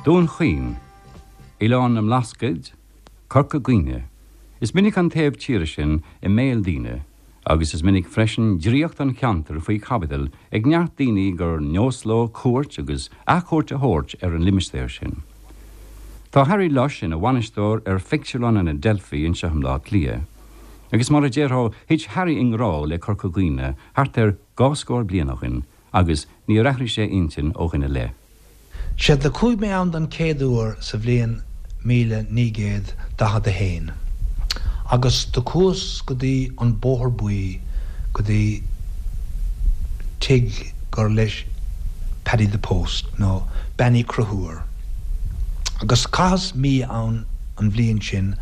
Dún Chaoin, Oileán na mBlascaod, Corca Dhuibhne. Is minic an taobh tíre sin i mbéal daoine agus is minic freisin draíocht an cheantair faoi chaibidil ag neart daoine gur nós leo cuairt agus athchuairt a thabhairt ar an limistéar sin. Tá Harry Lush ina bhainisteoir ar phictiúrlann an Adelphi anseo i mBleá Cliath. Agus mar a déarfá, thit Harry i ngrá le Corca Dhuibhne thart ar dhá scór bliain ó shin agus níor athraigh sé intinn ó shin i leith. Sea, do chuaigh mé ann don chéad uair sa bhliain 1941, agus do chuas go dtí an Bóthar Buí, go dtí tigh gur leis Paddy the Post, nó Bean Uí Chonchúir. Agus chaitheas mí ann an bhliain sin,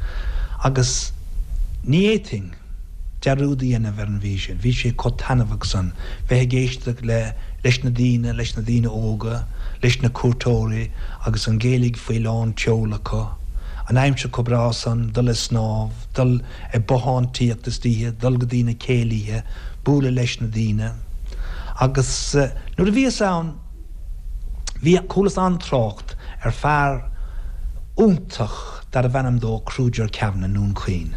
agus ní fhéadfainn. dearúd a dhéanamh ar an mhí sin. Bhí sé chomh taitneamhach san, bheith ag éisteacht le, leis na daoine, leis na daoine óga, leis na cuairteoirí agus an Ghaeilge faoi lán tseoil acu. An aimsir chomh breá san, dul ag snámh, dul ag bothántaíocht istoíche, dul go dtí na céilithe, bualadh leis na daoine. Agus nuair a bhíos ann, bhí, chualas an-trácht ar fear iontach, darbh ainm dó Kruger Kavanagh i nDún Chaoin.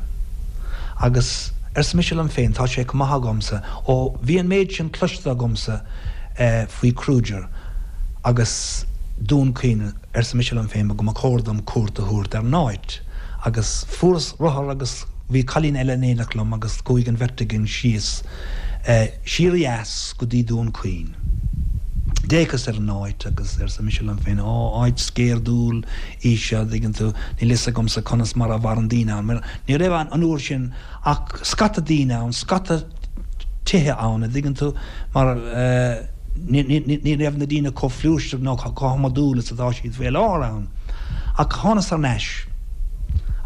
Agus arsa mise liom féin, tá sé chomh maith agamsa, ó bhí an méid sin cloiste agamsa faoi Kruger agus Dún Chaoin, arsa mise liom féin, go mba chóir dom cuairt a thabhairt ar an áit. Agus fuaireas rothar agus bhí cailín eile in éineacht liom agus chuaigh an bheirt againn síos siar ó dheas go dtí Dún Chaoin. D'fhéachas ar an áit agus arsa mise liom féin, Ó, áit sceirdiúil í seo, an dtuigeann tú, níl fhios agamsa conas mar a mhaireann daoine ann, mar ní raibh an uair sin ach scata daoine ann, scata tithe ann, an dtuigeann tú, mar ní raibh na daoine chomh flúirseach nó chomh hiomadúil is atá siad faoi láthair ann. Ach thánas thar n-ais.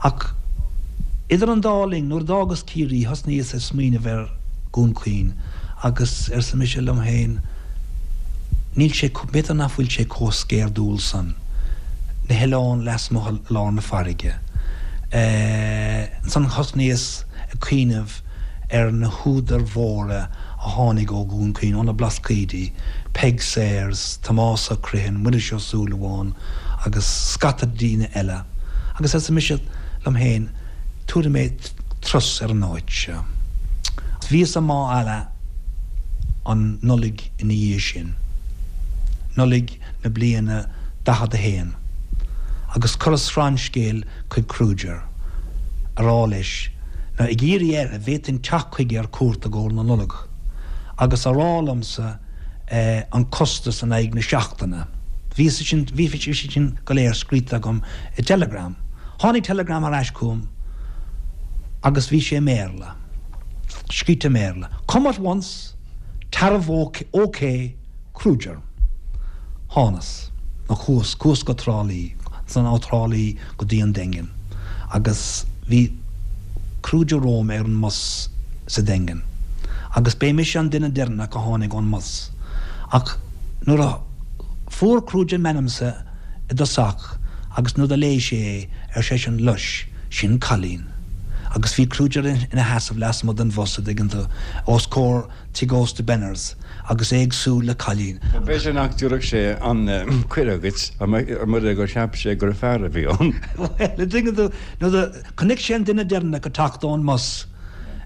Ach idir an dá linn, nuair a d'fhágas Ciarraí, thosnaíos ag smaoineamh ar Dhún Chaoin agus arsa mise liom féin, Níl sé, b'fhéidir nach bhfuil sé chomh sceirdiúil san, na hoileáin lasmuigh i lár na farraige. Ansan thosnaíos ag cuimhneamh ar na húdair mhóra a tháinig ó Dhún Chaoin, ó na Blascaoidí, Peig Sayers, Tomás Ó Criomhthain, Muiris Ó Súilleabháin agus scata daoine eile. Agus arsa mise liom féin, tabharfaidh mé turas ar an áit seo. Bhíos i Mágh Ealla an Nollaig ina dhiaidh sin, Nollaig na bliana 41, agus chuireas srannscéal chuig Kruger, a rá leis, nó ag iarraidh air, an bhféadfainn teacht chuige ar cuairt i gcomhair na Nollag, agus a rá liomsa an costas in aghaidh na seachtaine. Bhí sé sin, bhí sé sin go léir scríte agam i dteileagram. Tháinig teileagram ar ais chugam agus bhí sé i mBéarla. Scríte i mBéarla. Come at once, tariff OK, Kruger. Thánas, nó chuas, chuas go Trá Lí, ansan ó Thrá Lí go dtí an Daingean. Agus bhí Kruger romham ar an mbus sa Daingean. Agus b'é mise an duine deireanach a tháinig ón mbus. Ach nuair a fuair Kruger m'ainmse i dtosach agus nuair do léigh sé é, ar seisean, Lush, sin cailín. Agus bhí Kruger ina sheasamh lasmuigh den bhus, a dtuigeann tú, os comhair tigh ósta Benners, agus é ag súil le cailín. B'fhéidir nach dtabharfadh sé an cuireadh dhuit mura gur cheap sé gur fear a bhí ann. Bhuel, a dtuigeann tú, nuair do chonaic sé an duine deireanach ag teacht ón mbus,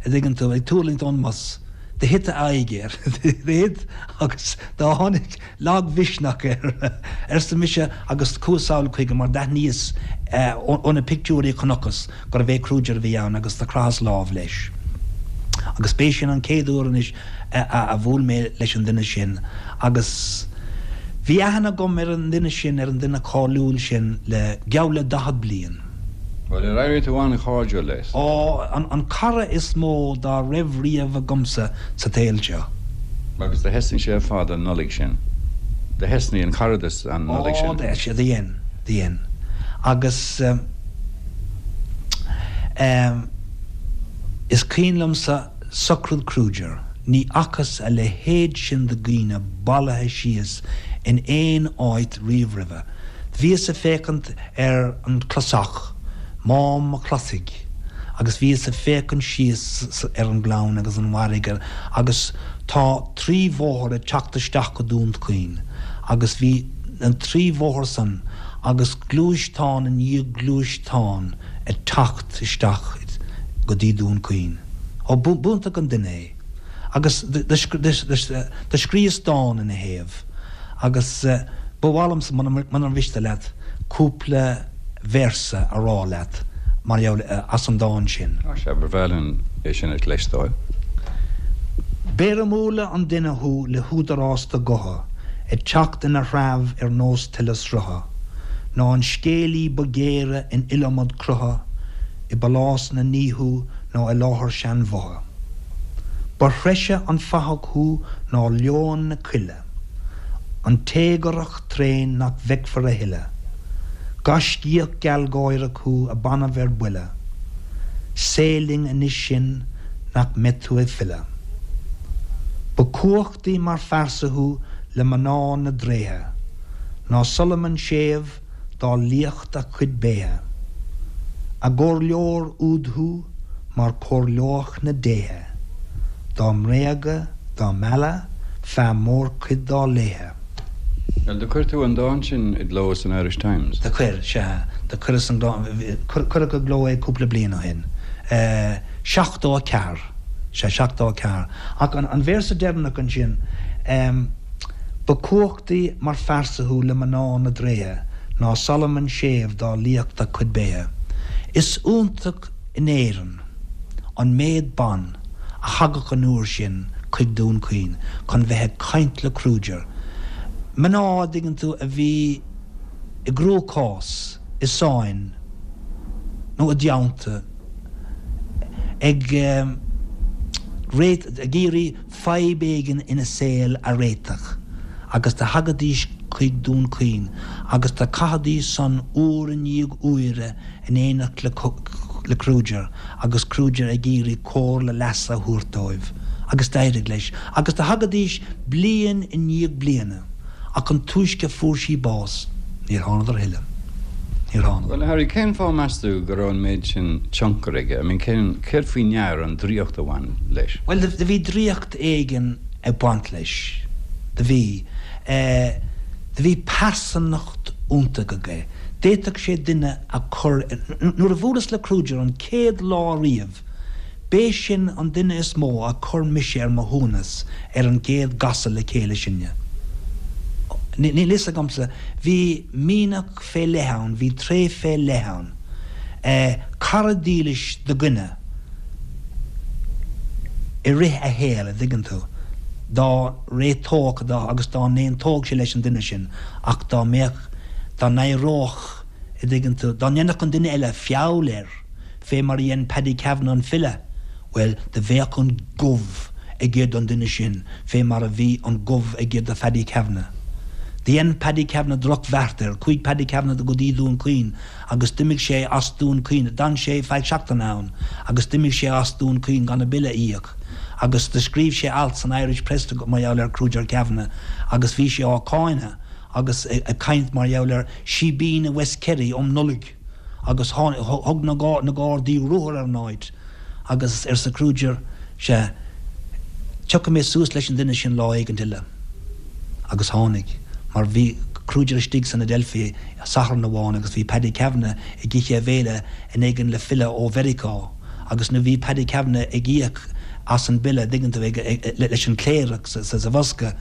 a dtuigeann tú, ag tuirlingt ón mbus, do thit a aghaidh air, do thit agus do tháinig lagmhisneach air, arsa mise agus chuas sall chuige mar d'aithníos ó na pictiúirí a chonacthas gurbh é Kruger a bhí ann agus do chroitheas lámh leis. Agus b'é sin an chéad uair anois a bhuail mé leis an duine sin agus bhí aithne agam ar an duine sin, ar an duine cáiliúil sin le geall le 40 bliain. Bhuel, ar éirigh tú an-chairdiúil leis? Ó, an cara is mó dá raibh riamh agamsa sa tsaol seo. Agus do thosnaigh sé ar fad an Nollaig sin. Do thosnaigh an caradas an Nollaig sin. Ó, do dhein, do dhein. Agus eh, is cuimhin liomsa socraid Kruger, ní fhacthas a leithéid sin de dhaoine bailithe síos in aon áit riamh roimhe. Bhíos ag féachaint ar an chlosach, Mám an Chlosaigh, agus bhíos ag féachaint síos ar an ngleann agus an bhfarraige agus tá trí bhóthar ag teacht isteach go Dún Chaoin agus bhí na trí bhóthar san. agus gluaisteán i ndiaidh gluaisteáin ag teacht isteach go dtí Dún Chaoin. Ó, b'iontach an duine é. Agus do scríos dán ina thaobh agus ba mhaith liomsa, munar mhiste leat, cúpla véarsa a rá leat mar gheall as an dán sin. Á sea, ba bhreá linn é sin a chloisteáil. B'éirimiúla an duine thú le húdarás do ghutha ag teacht ina threabh ar nós tuile srutha, ná an scéalaí ba ghéire in iliomad crutha i bpálás na ndíothú ná i láthair seanbhotha. Ba threise an fathach thú ná leon na coille, an téagarach tréan nach bhfeicfear a thuilleadh. Gaiscíoch gealgháireach thú a b'annamh ar buile. Sail linn anois sin nach mbeidh tú ag filleadh. Ba chumhachtaí mar phearsa thú le mná na dtréithe ná Solomon séimh dá liacht a chuid béithe. A gcomhairleoir úd thú mar chomhairleodh na déithe, dá mbréagadh, dá mealladh, feadh mórchuid dá laethe. Bhuel, do chuir tú an dán sin i gcló san Irish Times? Do chuir, sea. Do chuireas an dán, cuireadh i gcló é cúpla bliain ó shin. 74, sea, 74. Ach an véarsa deireanach ansin, Ba chumhachtaí mar phearsa thú le mná na dtréithe ná Solomon séimh dá liacht a chuid béithe. Is iontach in Éirinn an méad ban a thagadh an uair sin chuig Dún Chaoin chun bheith ag caint le Kruger. Mná, a dtuigeann tú, a bhí i gcruachás, i sáinn nó i dteannta, ag ag iarraidh fadhb éigin ina saol a réiteach agus do thagaidís chuig Dún Chaoin agus do chaithidís san uair i ndiaidh uaire in éineacht le Kruger agus Kruger ag iarraidh comhairle leasa a thabhairt dóibh agus d'éirigh leis agus do thagaidís bliain i ndiaidh bliana ach an túisce fuair sí bás níor thánadar a thuilleadh. Níor thánadar. Bhuel, a Harry, cén fáth meas tú go raibh an méid sin tionchair aige? I mean, cén, céard faoi ndear an draíocht a bhain leis? Bhuel, do bhí draíocht éigin ag baint leis. Do bhí. Eh, do bhí pearsanacht iontach aige. D'fhéadfadh sé duine a chur ar, nuair a bhuaileas le Kruger an chéad lá riamh, b'é sin an duine is mó a chuir mise ar mo shuaimhneas ar an gcéad gcasadh le chéile sinne. Níl fhios agamsa, bhí mianach fé leith ann, bhí tréith fé leith ann. Cara dílis do dhuine i rith a shaoil, a dtuigeann tú, dá réiteodh agus dá n-aontódh sé leis an duine sin ach dá mbeadh, dá n-éireodh, a dtuigeann tú, dá ndéanfadh an duine eile feall air, fé mar a dhein Paddy Kavanagh an file, bhuel, do bheadh an gomh aige don duine sin fé mar a bhí an gomh aige do Phaddy Kavanagh. Do dhein Paddy Kavanagh droch-bheart air. Chuaigh Paddy Kavanagh go dtí Dún Chaoin agus d'imigh sé as Dún Chaoin, d'fhan sé feadh seachtaine ann agus d'imigh sé as Dún Chaoin gan a bille a íoc agus do scríobh sé alt san Irish Press mar gheall ar Kruger Kavanagh agus bhí sé á cháineadh agus ag caint mar gheall ar síbín i West Kerry um Nollaig agus thug na Gardaí ruathar ar an áit agus arsa Kruger, sea, tiocfaidh mé suas leis an duine sin lá éigint eile. Agus tháinig, mar bhí Kruger istigh san Adelphi Satharn amháin agus bhí Paddy Kavanagh ag ithe a bhéile in éigean le filleadh ó Mheiriceá agus nuair bhí Paddy Kavanagh ag íoc as an bille, dtuigeann tú, leis an chléireach sa bhosca,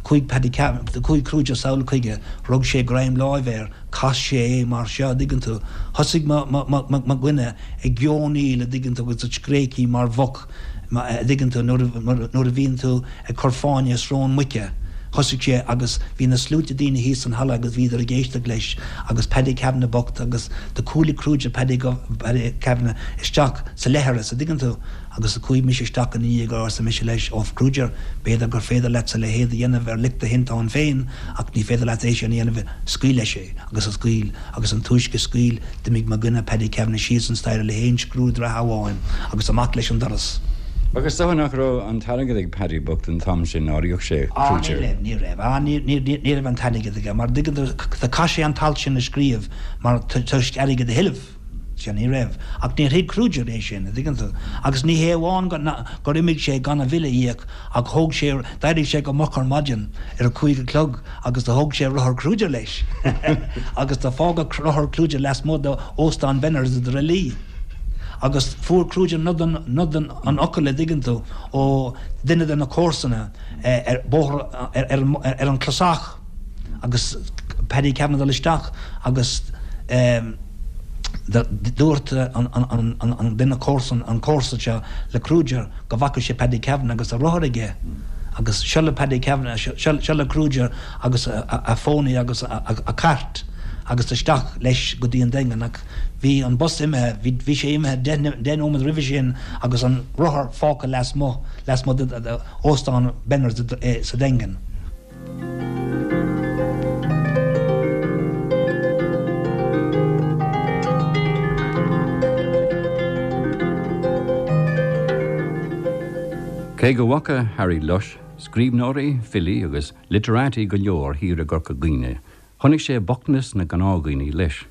chuaigh Paddy Kavanagh, chuaigh Kruger sall chuige, rug sé greim láimhe air, chas sé é mar seo, a dtuigeann tú. Thosaigh mo, mo, mo, mo dhuine ag geonaíl, a dtuigeann tú, agus ag scréachaí mar mhuc, a dtuigeann tú, nuair a, nuair a bhíonn tú ag cur fáinne i srón muice. Thosaigh sé agus bhí na sluaite daoine thíos san halla agus bhíodar ag éisteacht leis agus Paddy Kavanagh bocht agus do chuala Kruger Paddy, Paddy Kavanagh isteach sa leithreas, a dtuigeann tú. Agus do chuaigh mise isteach ina dhiaidh arsa mise leis, Ó, Kruger, b'fhéidir gur féidir leatsa a leithéid a dhéanamh ar lic do thinteáin féin, ach ní féidir leat é sin a dhéanamh, scaoil leis é. Agus a scaoil, agus an túisce a scaoil, d'imigh mo dhuine, Paddy Kavanagh, síos an staighre le haon scriúdhraithe amháin agus amach leis an doras. Ach is dócha nach raibh an t-airgead ag Paddy bocht an t-am sin nár íoc sé Á, ní Kruger. raibh, ní raibh. Á, ní, ní, ní raibh an t-airgead aige, mar dtuigeann tú, do chaith sé an t-alt sin a scríobh mar toisc airgead a thuilleamh. Sea, ní raibh. Ach níor thuig Kruger é sin, a' dtuigeann tú. Agus ní hé amháin gur imigh sé gan a bhille a íoc ach thóg sé, d'éirigh sé go moch ar maidin ar a cúig a chlog agus do thóg sé rothar Kruger leis agus do fágadh rothar Kruger lasmuigh d'Óstán Benners i dTrá Lí. Agus fuair Kruger nod an, nod an fhocail, a' dtuigeann tú, ó duine de na comharsana ar bóthar, ar, ar, ar an Clasach. agus Paddy Kavanagh dul isteach agus dúirt an duine comharsan, an comharsa seo le Kruger go bhfaca sé Paddy Kavanagh agus a rothar aige agus seo le Paddy Kavanagh, seo le Kruger agus a phónaí agus a chairt agus isteach leis go dtí an Daingean ach bhí an bus imithe, bhí sé imithe deich nóiméad roimhe sin agus an rothar fágtha lasmuigh, lasmuigh d'Óstán Benners sa Daingean. Cé go bhfaca Harry Lush scríbhneoirí, filí agus literati go leor thiar i gCorca Dhuibhne, chonaic sé bochtanas na ngnáthdhaoine leis.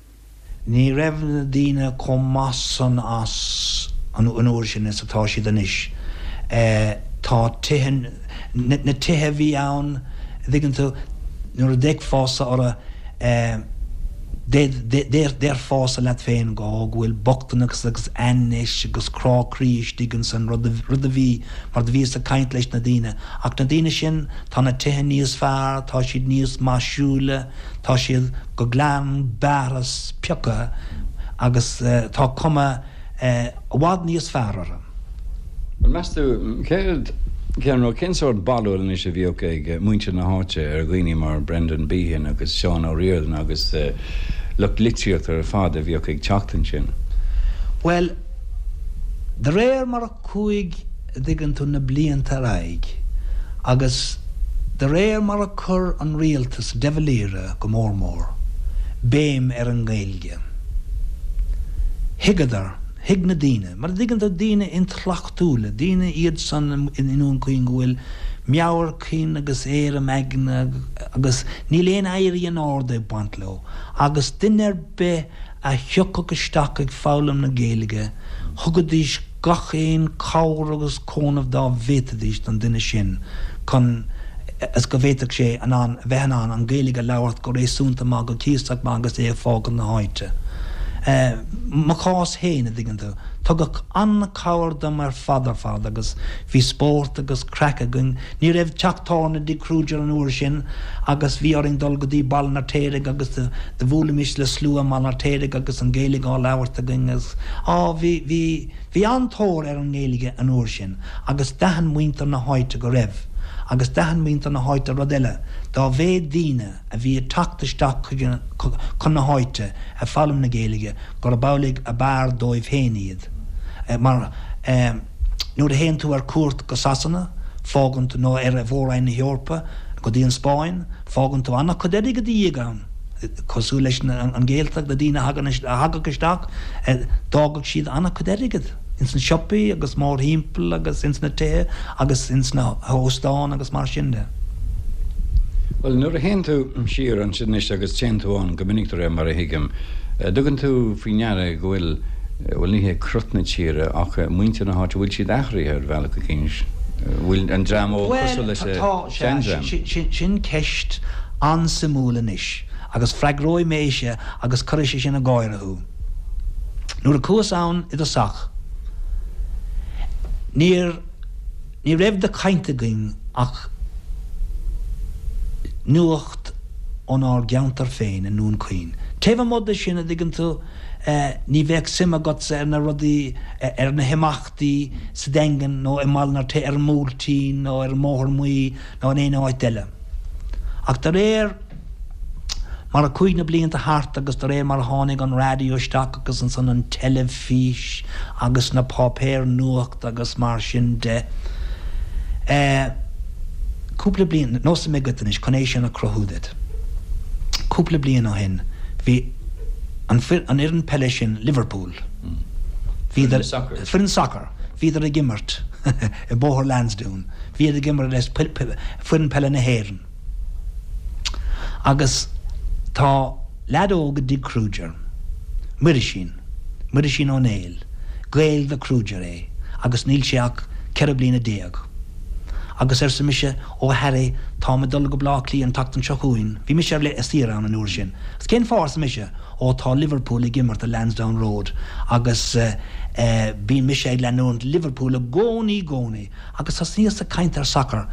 Ní raibh na daoine chomh maith san as an uair sin is atá siad anois. Tá tithe, na tithe a bhí ann, a dtuigeann tú, nuair a d'fhéachfása orthu, déarfása leat féin go bhfuil bochtaineacht agus ainnis agus crá croí istigh insan rud a bhí, mar do bhíos ag caint leis na daoine. Ach na daoine sin, tá na tithe níos fearr, tá siad níos maisiúla, Tá siad go glan bearrtha pioctha agus tá cuma i bhfad níos fearr orthu. Bhuel, meas tú, céard, cén rud, cén sórt barúil anois a bhíodh ag muintir na háite ar dhaoine mar Brendan Behan agus Seán Ó Ríordáin agus lucht litríochta ar fad a bhíodh ag teacht ansin? Bhuel, de réir mar a chuaigh, a dtuigeann tú, na blianta ar aghaidh agus de réir mar a chuir an rialtas, de Valera go mór mór, béim ar an nGaeilge, thuigeadar, thuig na daoine, mar a dtuigeann tú, daoine intleachtúla, daoine iad san i nDún Chaoin go bhfuil meabhair chinn agus éirim aigne agus níl aon éirí in airde ag baint leo agus duine ar bith a thiocfadh isteach ag foghlaim na Gaeilge, thugaidís gach aon chabhair agus cúnamh dá bhféadfaidís don duine sin chun is go bhféadfadh sé in ann, a bheith in ann an Ghaeilge a labhairt go réasúnta maith, go cuíosach maith agus é ag fágáil na háite. Mo chás féin, a dtuigeann tú, tugadh an-chabhair dom ar fad ar fad agus bhí spórt agus craic againn. Ní raibh teach tábhairne i dtigh Kruger an uair sin agus bhí orainn dul go dtí Baile an Fheirtéaraigh agus do bhuailimis le slua i mBaile an Fheirtéaraigh agus an Ghaeilge á labhairt againn agus á bhí, bhí, bhí an-tóir ar an nGaeilge an uair sin agus d'aithin muintir na háite go raibh agus d'aithin muintir na háite rud eile, dá mhéad daoine a bhí ag teacht isteach chuig an, chun na háite ag foghlaim na Gaeilge gurb amhlaidh ab fhearr dóibh féin iad mar eh. Nuair a théann tú ar cuairt go Sasana, fágann tú, nó ar Mhór-Roinn na hEorpa, go dtí an Spáinn, fágann tú an-chuid airgid i do dhiaidh ann. Cosúil leis an Ghaeltacht, na daoine a thagann, a thagadh isteach, d'fhágadh siad an-chuid airgid ins na siopaí agus mórthimpeall agus ins na tithe agus ins na hóstáin agus mar sin de. Bhuel, nuair a théann tú siar ansin anois agus téann tú ann go minic de réir mar a thuigim, dtugann tú faoi ndeara go bhfuil, bhuel ní hé crot na tíre ach muintir na háite, bhfuil siad athraithe ar bhealach eicínt? Bhfuil an dream óg cosúil leis an seandream? Bhuel, tá, sea, sin ceist an-suimiúil anois agus freagróidh mé ise agus cuirfidh sé sin ag gáire thú. Nuair a chuas ann i dtosach, níor, Ní raibh de chaint againn ach nuacht ónár gceantar féin i nDún Chaoin. Taobh amuigh de sin, a dtuigeann tú, ní bheadh suim agatsa ar na rudaí, ar na himeachtaí sa Daingean nó i mBaile an Fheirtéaraigh, ar an mBuailtín nó ar an mBóthar Muí nó in aon áit eile. Ach de réir mar a chuaigh na blianta thart agus de réir mar a tháinig an raidió isteach agus ansan an teilifís agus na páipéir nuachta agus mar sin de, eh, cúpla bliain, neosfaidh mé duit anois chun é sin a chruthú duit. Cúpla bliain ó shin bhí an an fhoireann peile sin, Liverpool, bhíodar, foireann sacair, bhíodar ag imirt i mBóthar Lansdowne, bhíodar ag imirt le foireann peile na hÉireann. Agus tá leaid óg i dtigh Kruger, Muirisín. Muirisín Ó Néill. Gael de chrúigear é agus níl sé ach 14 bliana. Agus arsa mise, Ó a Harry, táim ag dul go Baile Átha Cliath an tseachtain seo chugainn. Bhí mise ar saoire ann an uair sin. Agus cén fáth, arsa mise? Ó tá Liverpool ag imirt i Lansdowne Road agus bíonn mise ag leanúint Liverpool i gcónaí, gcónaí. Agus thosnaíos ag caint ar sacar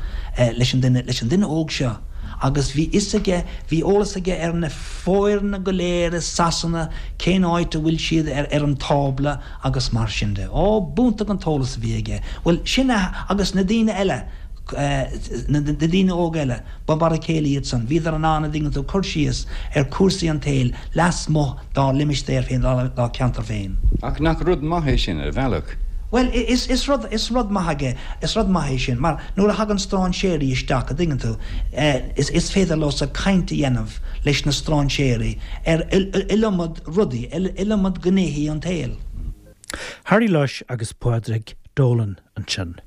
leis an duine, leis an duine óg seo agus bhí fhios aige, bhí eolas aige ar na foirne go léir i Sasana, cén áit a bhfuil siad ar ar an tábla agus mar sin de. Ó, b'iontach an t-eolas a bhí aige. Bhuel, sin a, agus na daoine eile, na daoine óga eile, Ba mar a chéile iad san. Bhíodar in ann, a dtuigeann tú, cur síos ar chúrsaí an tsaoil lasmuigh dá limistéar féin, dá ceantar féin. Ach nach rud maith é sin, ar bhealach? Bhuel, is rud, is rud maith aige, is rud maith é sin, mar nuair a thagann strainséirí isteach, a dtuigeann tú, is, is féidir leosa caint a dhéanamh leis na strainséirí ar iliomad rudaí, iliomad gnéithí an tsaoil. Harry Lush agus Pádraig Dolan ansin.